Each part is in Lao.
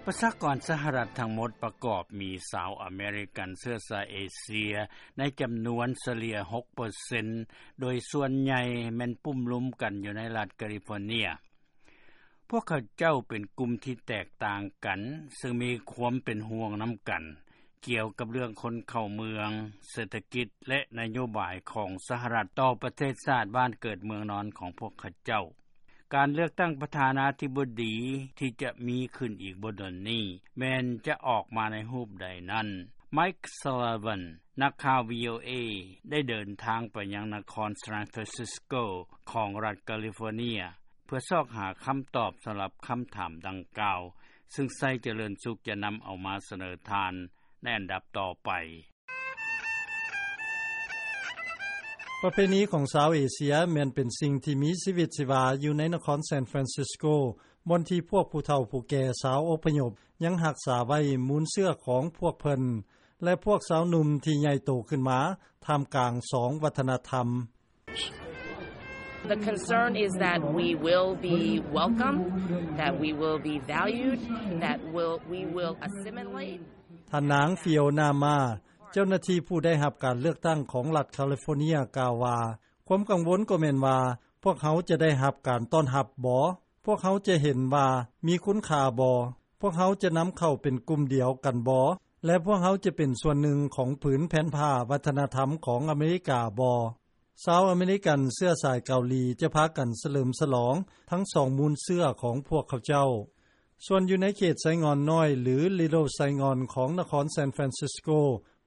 ປະຊາກອນສະຫະລັດທັງໝົດປະກອບມີຊາວອາເມລິກັນເຊື້ອສາຍເອເຊຍໃນຈຳນວນສະເລ່ຍຫົກເປີເຊັນ ໂດຍສ່ວນໃຫຍ່ແມ່ນປຸ້ມລຸມກັນຢູ່ໃນລັດກາລິຟໍເນຍ. ພວກເຂົາເຈົ້າເປັນກຸ່ມທີ່ແຕກຕ່າງກັນ ເຊິ່ງມີຄວາມເປັນຫ່ວງນຳກັນ ກ່ຽວກັບເລື່ອງຄົນເຂົ້າເມືອງ, ເສດຖະກິດ ແລະ ນະໂຍບາຍຂອງສະຫະລັດຕໍ່ປະເທດຊາດບ້ານເກີດເມືອງນອນຂອງພວກເຂົາເຈົ້າ. ການເລືອກຕັ້ງປະທານາທິບໍດີທີ່ຈະມີຂຶ້ນອີກບໍ່ດົນນີ້ ແມ່ນຈະອອກມາໃນຮູບໃດນັ້ນ, ໄມຄ໌ ຊາລາວັນ ນັກຂ່າວ ວີໂອເອ ໄດ້ເດີນທາງໄປຍັງນະຄອນ San Francisco ຂອງລັດກາລິຟໍເນຍ ເພື່ອຊອກຫາຄຳຕອບສຳລັບຄຳຖາມດັ່ງກ່າວ, ເຊິ່ງໄຊຈະເລີນສຸກຈະນຳເອົາມາສະເໜີທ່ານໃນອັນດັບຕໍ່ໄປ. ປະເພນີຂອງຊາວເອເຊຍແມ່ນເປັນສິ່ງທີ່ມີຊີວິດຊີວາຢູ່ໃນນະຄອນ San Francisco ບ່ອນທີ່ພວກຜູ້ເຖົ້າຜູ້ແກ່ຊາວອົບພະຍົບຍັງຮັກສາໄວ້ມູນເຊື້ອຂອງພວກເພິ່ນ ແລະ ພວກຊາວໜຸ່ມທີ່ໃຫຍ່ໂຕຂຶ້ນມາທ່າມກາງສອງວັດທະນະທຳ. The concern is that we will be welcome, that we will be valued, that will, we will assimilate. ທ່ານນາງ ຟິໂອນາ ມາ ເຈົ້າໜ້າທີ່ຜູ້ໄດ້ຮັບການເລືອກຕັ້ງຂອງລັດຄາລິຟໍເນຍກ່າວວ່າ, ຄວາມກັງວົນກໍແມ່ນວ່າ ພວກເຮົາຈະໄດ້ຮັບການຕ້ອນຮັບບໍ? ພວກເຮົາຈະເຫັນວ່າມີຄຸນຄ່າບໍ? ພວກເຮົາຈະນຳເຂົ້າເປັນກຸ່ມດຽວກັນບໍ? ແລະ ພວກເຮົາຈະເປັນສ່ວນໜຶ່ງຂອງຜືນແຜ່ນຜ້າວັດທະນະທຳຂອງອາເມລິກາບໍ? ຊາວອາເມລິກັນເຊື້ອສາຍເກົາຫຼີຈະພາກັນສະເຫຼີມສະຫຼອງທັງສອງມູນເຊື້ອຂອງພວກເຂົາເຈົ້າ. ສ່ວນຢູ່ໃນເຂດໄຊງ່ອນນ້ອຍ ຫຼື Little Saigon ຂອງນະຄອນ San Francisco,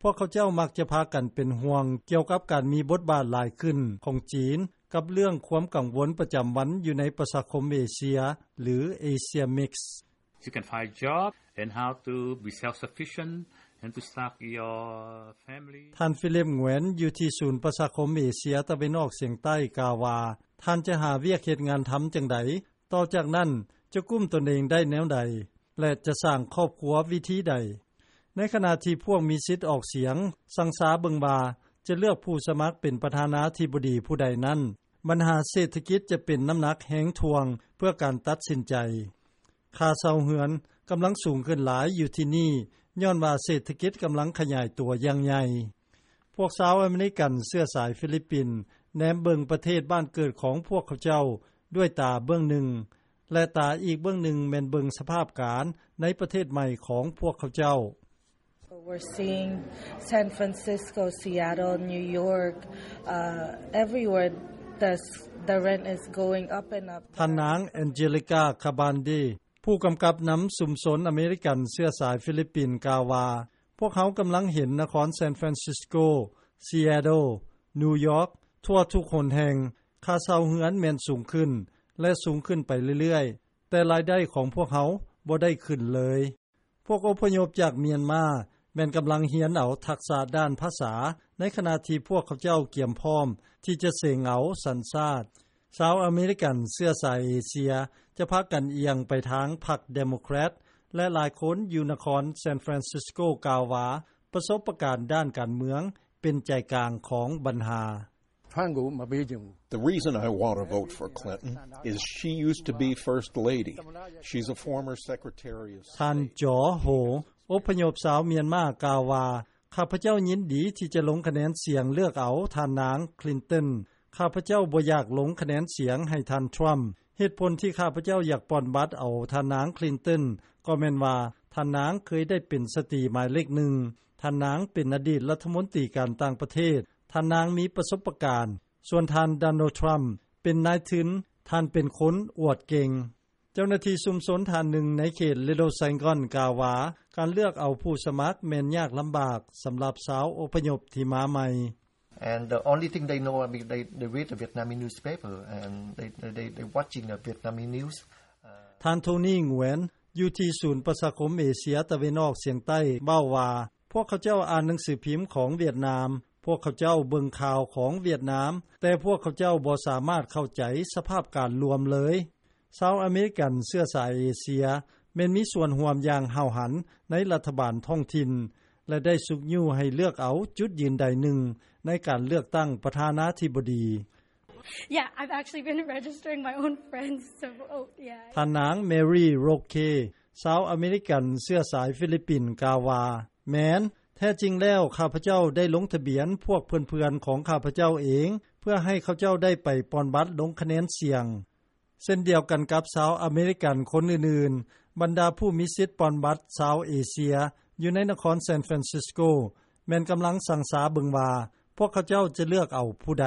ພວກເຂົາເຈົ້າມັກຈະພາກັນເປັນຫ່ວງກ່ຽວກັບການມີບົດບາດຫຼາຍຂຶ້ນຂອງຈີນ ກັບເລື່ອງຄວາມກັງວົນປະຈຳວັນຢູ່ໃນປະຊາຄົມເອເຊຍ ຫຼື Asia Mix. You can find job and how to be self-sufficient and to start your family. ທ່ານ Philip Nguyen ຢູ່ທີ່ສູນປະຊາຄົມເອເຊຍຕາເວັນອອກສຽງໃຕ້ກ່າວວ່າ, ທ່ານຈະຫາວຽກເຮັດງານທຳຈັ່ງໃດ? ຕໍ່ຈາກນັ້ນຈະກຸ້ມຕົນເອງໄດ້ແນວໃດ? ແລະ ຈະສ້າງຄອບຄົວວິທີໃດ? ໃນຂະນະທີ່ພວກມີສິດອອກສຽງຊັງຊາເບິ່ງວ່າຈະເລືອກຜູ້ສະໝັກເປັນປະທານາທິບໍດີຜູ້ໃດນັ້ນ, ບັນຫາເສດຖະກິດຈະເປັນນ້ຳໜັກແຮງຖ່ວງເພື່ອການຕັດສິນໃຈ. ຄ່າເຊົ່າເຮືອນກຳລັງສູງຂຶ້ນຫຼາຍຢູ່ທີ່ນີ້ ຍ້ອນວ່າເສດຖະກິດກຳລັງຂະຫຍາຍຕົວຢ່າງໃຫຍ່. ພວກຊາວອາເມລິກັນເຊື້ອສາຍຟີລິບປິນແນມເບິ່ງປະເທດບ້ານເກີດຂອງພວກເຂົາເຈົ້າດ້ວຍຕາເບື້ອງໜຶ່ງ ແລະ ຕາອີກເບື້ອງໜຶ່ງແມ່ນເບິ່ງສະພາບການໃນປະເທດໃໝ່ຂອງພວກເຂົາເຈົ້າ. So we're seeing San Francisco, Seattle, New York, uh, everywhere the, the rent is going up and up. ທ່ານນາງ Angelica Cabande ຜູ້ກຳກັບນຳຊຸມຊົນອາເມລິກັນເຊື້ອສາຍຟີລິບປິນກ່າວວ່າ, ພວກເຮົາກຳລັງເຫັນນະຄອນ San Francisco, Seattle, New York ທົ່ວທຸກຫົນແຫ່ງ, ຄ່າເຊົ່າເຮືອນແມ່ນສູງຂຶ້ນ ແລະ ສູງຂຶ້ນໄປເລື້ອຍໆ, ແຕ່ລາຍໄດ້ຂອງພວກເຮົາບໍ່ໄດ້ຂຶ້ນເລີຍ. ພວກອົບພະຍົບຈາກມຽນມາແມ່ນກຳລັງຮຽນເອົາທັກສະດ້ານພາສາ ໃນຂະນະທີ່ພວກເຂົາເຈົ້າກຽມພ້ອມທີ່ຈະເສັງເອົາສັນຊາດ. ຊາວອາເມລິກັນເຊື້ອສາຍເອເຊຍຈະພາກັນອຽງໄປທາງພັກເດໂມແຄຣດ ແລະ ຫຼາຍຄົນຢູ່ນະຄອນ San Francisco ກ່າວວ່າ ປະສົບປະການດ້ານການເມືອງເປັນໃຈກາງຂອງບັນຫາ. ဖမ်းကိုမပေးချင်ဘူး။ The reason I want to vote for Clinton is she used to be First Lady. She's a former Secretary of State. ທ່ານ ຈໍ ໂຮ ອົບພະຍົບຊາວມຽນມາກ່າວວ່າ, ຂ້າພະເຈົ້າຍິນດີທີ່ຈະລົງຄະແນນສຽງເລືອກເອົາທ່ານນາງ Clinton. ຂ້າພະເຈົ້າບໍ່ຢາກລົງຄະແນນສຽງໃຫ້ທ່ານ Trump. ເຫດຜົນທີ່ຂ້າພະເຈົ້າຢາກປ່ອນບັດເອົາທ່ານນາງ Clinton ກໍແມ່ນວ່າ ທ່ານນາງເຄີຍໄດ້ເປັນສະຕີໝາຍເລກໜຶ່ງ. ທ່ານນາງເປັນອະດີດລັດຖະມົນຕີການຕ່າງປະເທດ. ທ່ານນາງມີປະສົບປະການ. ສ່ວນທ່ານ Donald Trump ເປັນນາຍທຶນ. ທ່ານເປັນຄົນອວດເກັ່ງ. ເຈົ້າໜ້າທີ່ຊຸມຊົນທ່ານໜຶ່ງໃນເຂດ Little Saigon ກ່າວວ່າ, ການເລືອກເອົາຜູ້ສະໝັກແມ່ນຍາກລຳບາກສຳລັບຊາວອົບພະຍົບທີ່ມາໃໝ່. And the only thing they know, I mean, they, they read the Vietnamese newspaper and they, they, they, they watching the Vietnamese news. ທ່ານ ໂທນີ ງວນ ຢູ່ທີ່ສູນປະຊາຄົມເອເຊຍຕາເວັນອອກສຽງໃຕ້ເວົ້າວ່າ, ພວກເຂົາເຈົ້າອ່ານໜັງສືພິມຂອງຫວຽດນາມ, ພວກເຂົາເຈົ້າເບິ່ງຂ່າວຂອງຫວຽດນາມ, ແຕ່ພວກເຂົາເຈົ້າບໍ່ສາມາດເຂົ້າໃຈສະພາບການລວມເລີຍ. ຊາວອາເມລິກັນເຊື້ອສາຍເອເຊຍແມ່ນມີສ່ວນຮ່ວມຢ່າງຫ້າວຫັນໃນລັດຖະບານທ້ອງຖິ່ນ ແລະ ໄດ້ຊຸກຍູ້ໃຫ້ເລືອກເອົາຈຸດຢືນໃດໜຶ່ງໃນການເລືອກຕັ້ງປະທານາທິບໍດີ. Yeah, I've actually been registering my own friends to vote. Yeah. ທ່ານນາງ Mary Roque ຊາວອາເມລິກັນ ເຊື້ອສາຍຟີລິບປິນ ກ່າວວ່າ: ແມ່ນ, ແທ້ຈິງແລ້ວ ຂ້າພະເຈົ້າ ໄດ້ລົງທະບຽນ ພວກເພື່ອນໆ ຂອງຂ້າພະເຈົ້າເອງ ເພື່ອໃຫ້ເຂົາເຈົ້າ ໄດ້ໄປປ່ອນບັດ ລົງຄະແນນສຽງ. ເຊັ່ນດຽວກັນກັບ ຊາວອາເມລິກັນ ຄົນອື່ນໆ ບັນດາຜູ້ມີສິດ ປ່ອນບັດ ຊາວເອເຊຍ ຢູ່ໃນນະຄອນ San Francisco ແມ່ນກຳລັງ ຊັ່ງຊາເບິ່ງວ່າ ພວກເຂົາເຈົ້າ ຈະເລືອກເອົາຜູ້ໃດ.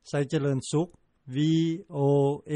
ໄຊຈະເລີນສຸກ ວີໂອເອ